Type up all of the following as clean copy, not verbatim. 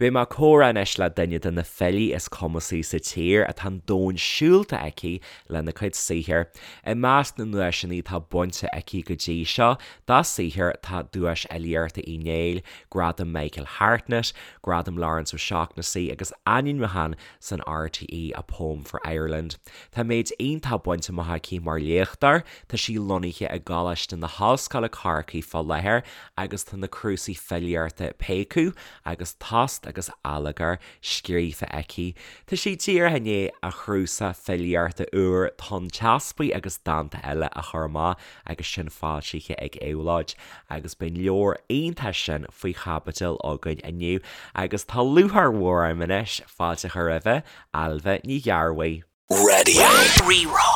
Beidh mé ag comhrá anois le duine de na filí is cumasaí sa tír atá an domhan siúlta aici lena cuid saothair. I measc na nduaiseanna atá bainte aici go dtí seo dá saothar tá Duais Fhilíochta Uí Néill, Gradam Michael Hartnett, Gradam Laurence O'Shaughnessy agus ainmniúchán san RTÉ A Poem for Ireland. Tá méid iontach bainte amach aici mar léachtóir, tá sí lonnaithe i gColáiste na hOllscoile Corcaigh fá láthair agus tá na cnuasaigh filíochta Péacadh agus Tost agus Allagar scríofa aici. Tá sí díreach i ndiaidh a cnuasach filíochta úr Tonn Teaspaigh agus Dánta Eile a chur amach agus sin foilsithe ag Éabhlóid agus beidh an leabhar iontach sin faoi chaibidil againn inniu agus tá lúcháir mhór orm anois fáilte a chur roimhe, Ailbhe Ní Ghearbhuigh. Raidió Rí-Rá.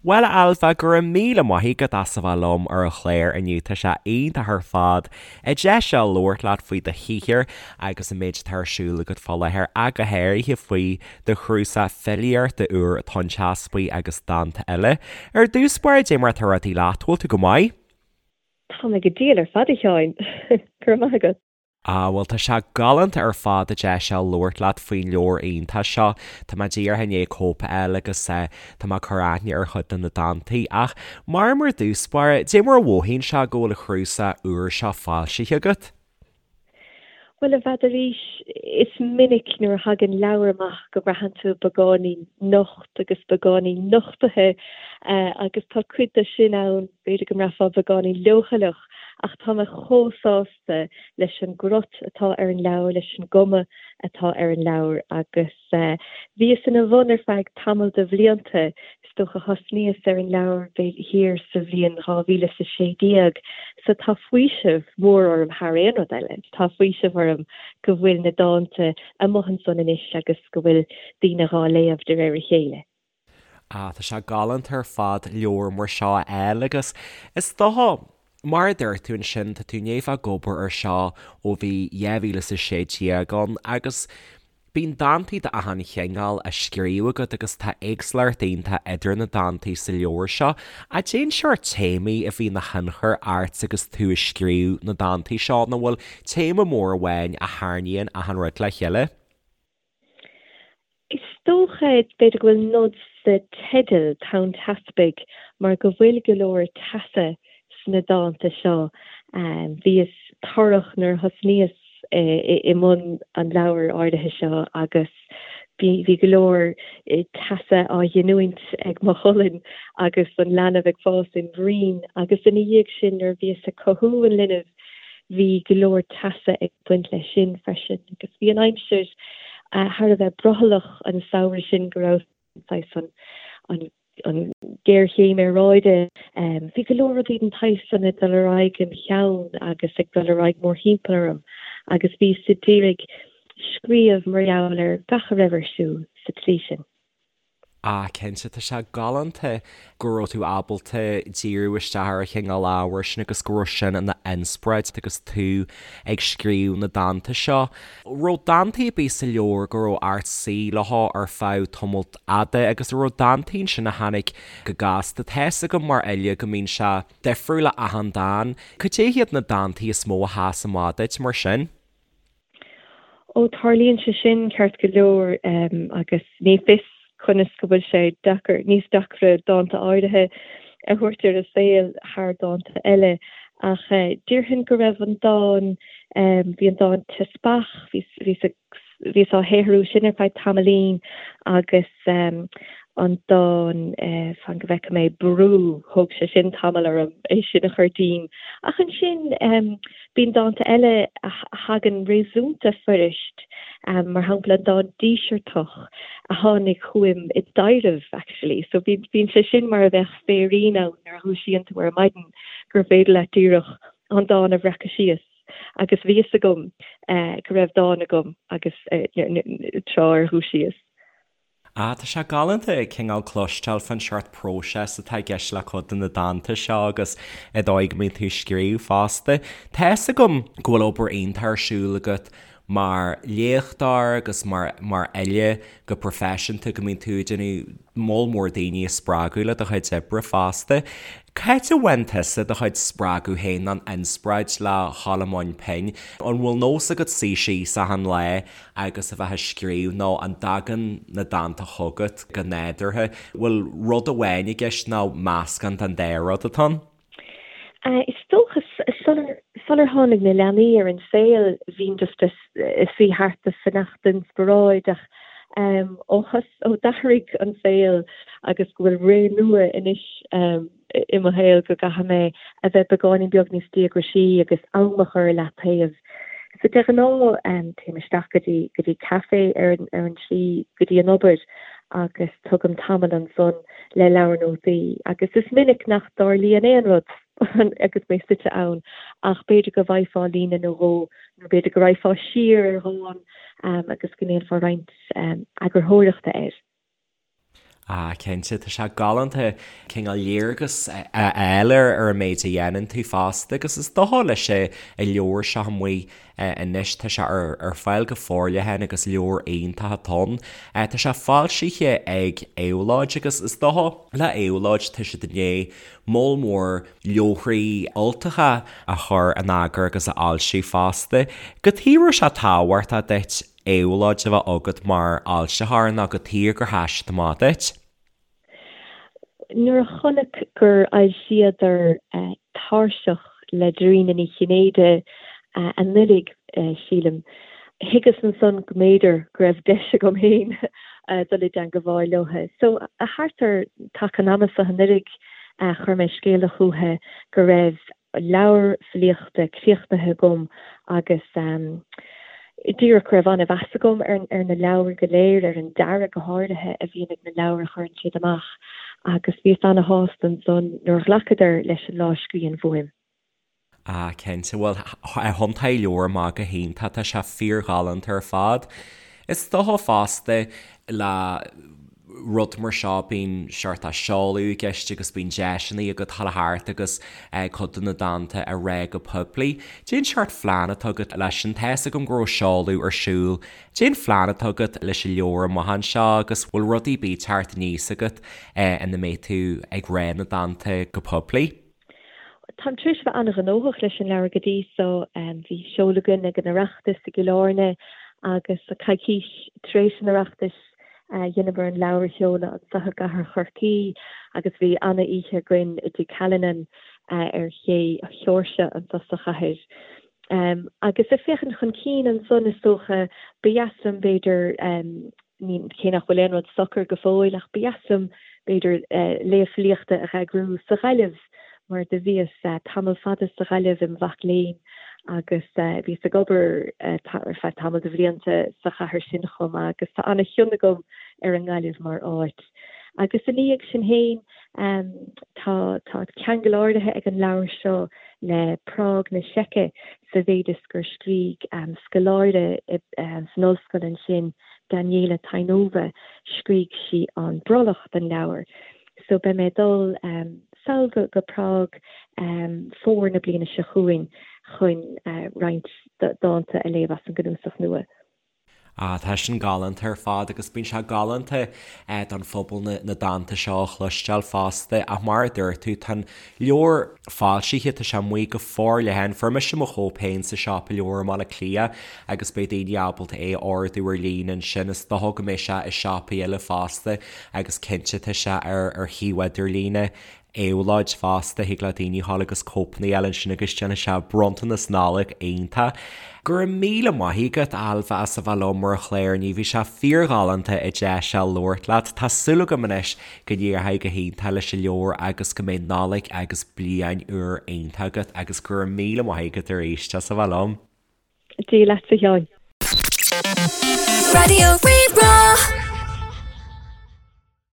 Bhuel a Ailbhe, go raibh míle maith agat as a bheith liom ar an chlár inniu, tá sé iontach ar fad an deis seo labhairt leat faoi do shaothar agus an méid atá ar siúl agat fá láthair ach go háirithe faoi do chnuasach filíochta úr Tonn Teaspaigh agus Dánta Eile. Ar dtús báire, dé mar atá rudaí leat, bhfuil tú go maith? Tá mé go diail ar fad a Sheáin, go raibh maith agat. Ah, bhuel, tá sé galánta ar fad an deis seo labhairt leat faoin leabhar iontach seo. Tá mé díreach i ndiaidh cóip a fháil agus tá mé ag cur aithne ar chuid de na dántaí. Ach, mar mar dtús báire, dé mar a mhothaíonn sé go bhfuil an cnuasach úr seo foilsithe agat? Bhuel, n'fheadar, is minic nuair a thagann leabhar amach go mbraitheann tú beagáinín nocht agus beagáinín nochtaithe agus tá cuid de sin ann, b'fhéidir go mbraithfeá beagáinín leochaileach ach tá mé chomh sásta leis an gcrot atá ar an leabhar, leis an gcuma atá ar an leabhar agus bhíos ina bhun ar feadh tamall de bhlianta, is dócha thosnaíos ar an leabhar thiar sa bhliain 2016 so tá faoiseamh mór orm thar aon rud eile, tá faoiseamh orm go bhfuil na dánta amuigh ansan anois agus go bhfuil daoine dhá léamh de réir a chéile. Ah, tá sé galánta ar fad leabhar mar seo a fháil agus is dócha, mar a dúirt tú ansin, tá tú i ndiaidh bheith ag obair ar seo ó bhí 2016 ann agus bíonn dántaí d'achan chineál á scríobh agat agus tá éagsúlacht iontach idir na dántaí sa leabhar seo. Cad é an sórt téamaí a bhí ina thionchar ort agus tú ag scríobh na dántaí seo nó bhfuil téama mór amháin a tharraingíonn achan rud le chéile? Is dócha, b'fhéidir go bhfuil nod sa teideal, Tonn Teaspaigh, mar go bhfuil go leor teasa sna dánta seo. Bhíos torrach nuair a thosnaíos i mbun an leabhair áirithe seo agus bhí go leor teasa á ghiniúint ag mo cholainn agus an leanbh ag fás im bhroinn agus ina dhiaidh sin nuair a bhíos ag cothú an linbh Bhí go leor teasa ag baint leis sin freisin agus bhí an aimsir thar a bheith brothallach an samhradh sin go raibh saghas an an ghéarchéim aeráide. Bhí go leor rudaí den tsaghas san ag dul ar aghaidh im cheann agus ag dul ar aghaidh mórthimpeall orm agus bhíos a d'iarraidh scríobh mar gheall ar gach a raibh ar siúl sa tslí sin. Ah, cinnte, tá sé galánta go raibh tú ábalta díriú isteach ar an chineál ábhair sin agus go raibh sin ina inspioráid agus tú ag scríobh na dánta seo. Raibh dántaí ar bith sa leabhar go raibh ort suí leo ar feadh tamalt fhada agus an raibh dántaí ansin a tháinig go gasta? Tá fhios agam mar fhile go mbíonn sé difriúil le achan dán. Cad é hiad na dántaí is mó a sheas amach duit mar sin? Ó, tarlaíonn sé sin ceart go leor agus ní fios conas go bhfuil sé deacair, níos deacra dánta áirithe a thabhairt ar an saol thar dánta eile ach déarfainn go raibh an dán, bhí an dán Teaspach, bhíos bhíos á shaothrú sin ar feadh tamaillín agus an dán, fan go bhfeice mé, Brú, thóg sé sin tamall orm é sin a chur díom ach ansin, Bíonn dánta eile a thagann réasúnta fuirist, mar shampla an dán Díseartach a tháinig chugam i dtaibhreamh actually. So bíonn sé sin mar a bheadh féirín ann nuair a dhúisíonn tú ar maidin gur féidir leat díreach an dán a bhreacadh síos agus bhí fhios agam go raibh dán agam agus tráth ar dhúisíos. Ah, tá sé galánta cineál cloisteáil fán seort próiseas atá i gceist le cuid de na dánta seo agus an dóigh go mbíonn tú ag scríobh fosta. Tá fhios agam go bhfuil obair iontach ar siúl agat. mar léachtóir agus mar mar fhile go proifisiúnta go mbíonn tú ag déanamh moll mór daoine a spreagadh le do chuid oibre fosta. Cá háit a bhfaigheann tusa do chuid spreagadh féin nó an inspioráid le dhul i mbun pinn? An bhfuil nós agat suí síos achan lá agus a bheith ag scríobh nó an dtagann na dánta chugat go nádúrtha? Bhfuil rud amháin i gceist nó meascán den dá rud atá ann? Is dócha, sular tháinig na leanaí ar an saol, bhínn just ag suí thart ag fanacht d'inspioráid ach ó ó d'athraigh an saol agus go bhfuil ré nua anois i mo shaol go gcaithfidh mé a bheith beagáinín beag níos díograisí agus am a chur i leataobh. So de ghnáth téim isteach go dtí go dtí caife ar an ar an tslí go dtí an obair agus tugaim tamall ansan le leabhar nótaí agus is minic nach dtarlaíonn aon rud agus mé suite ann ach b'fhéidir go bhfaighfeá líne nó dhó nó b'fhéidir go raghfá siar ar dhán agus go ndéanfá roinnt eagarthóireachta air. Ah, cinnte, tá sé galánta cineál léargas a fháil ar an méid a dhéanann tú fosta agus is dócha leis an leabhar seo amuigh anois. Tá sé ar fáil go forleathan agus leabhar iontach atá ann. Tá sé foilsithe ag Éabhlóid agus is dócha le Éabhlóid tá siad i ndiaidh moll mór leabharthaí Ultacha a chur in eagar agus a fhoilsiú fosta. Cad chuige a raibh sé tábhachtach duit Éabhlóid a bheith agat mar fhoilsitheoir nó cad chuige gur sheas siad amach duit? Nuair a chonac gur fhoilsíodar Tairseach le Dairena Ní Chinnéide anuraidh, sílim, thuigeas ansan go mb'fhéidir go raibh deis agam féin dul i dteangabháil leo. So, thart ar taca an ama so anuraidh, chuir mé scéala chúthu go raibh leabhar filíochta críochnaithe agam agus díreach go raibh an-mheas agam ar na leabhair go léir, ar an dearadh go háirithe a bhíonn ag na leabhair a chuireann siad amach agus bhíos ana-shásta ansan nuair a ghlacadar leis an lámhscríbhinn uaim. Ah, cinnte. Bhuel, thiontaigh an leabhar amach go hiontach, tá sé fíorghalánta ar fad. Is dócha fosta le rud mar seo, bíonn seort seoladh i gceist agus bíonn deiseanna agat dul thart agus cuid de na dánta a rá go poiblí. Cén seort phlean atá agat leis sin? Tá's agam go raibh seoladh ar siúl. Cén phlean atá agat leis an leabhar amach anseo agus bhfuil rudaí ar bith teacht aníos agat ina mbeidh tú ag rá na dánta go poiblí? Táim tar éis a bheith an-ghnóthach leis an leabhar go dtí so. Bhí seoladh againn ag an Oireachtas i gCill Airne agus coicís tar éis an Oireachtais dheineamar an leabhar a sheoladh anseo i gcathair Chorcaí agus bhí ana-oíche againn i dTigh Callinan ar Ché Sheoirse anseo sa chathair. Agus ag féachaint chun cinn ansan is dócha ba dheas liom b'fhéidir ní, cé nach bhfuil aon rud socair go fóill, ach ba dheas liom, b'fhéidir, léamh filíochta a dh'eagrú sa Ghaillimh, mar do bhíos tamall fada sa Ghaillimh im mhac léinn agus bhíos ag obair ar feadh tamall de bhlianta sa chathair sin chomh maith agus tá ana-chion agam ar an nGaillimh mar áit. Agus ina dhiaidh sin féin, tá, tá ceangal áirithe ag an leabhar seo le Prág na Seice sa mhéid is gur scrígh scoláire san ollscoil ansin, Daniela Tainova, scrígh sí an brollach don leabhar. So beidh mé ag dul sall go Prág fómhar na bliana seo chugainn chun roinnt dánta a léamh as an gcnuasach nua. Ah, tá sin galánta ar fad agus bíonn sé galánta don phobal na dánta seo a chloisteáil fosta ach mar a dúirt tú, tá an leabhar foilsithe, tá sé amuigh go forleathan. Fuair mise mo chóip féin sa siopa leabhar i mBaile Átha Cliath agus beidh daoine ábalta é a ordú ar líne ansin. Is dócha go mbeidh sé i siopaí eile fosta agus cinnte tá sé ar ar shuíomh idirlíne Éabhlóid fosta, thig le daoine dhul agus cóipeanna a fháil ansin agus déanfaidh sé bronntanas Nollag iontach. Go raibh míle maith agat, Ailbhe, as a bheith liom ar an chlár inniu. Bhí sé fíorghalánta an deis seo labhairt leat. Tá súil agam anois go n-éireoidh go hiontach leis an leabhar agus go mbeidh Nollaig agus Bliain úr iontach agat agus go raibh míle maith agat arís as a bheith liom. Dia leatsa, a Sheáin. Raidió Rí-Rá.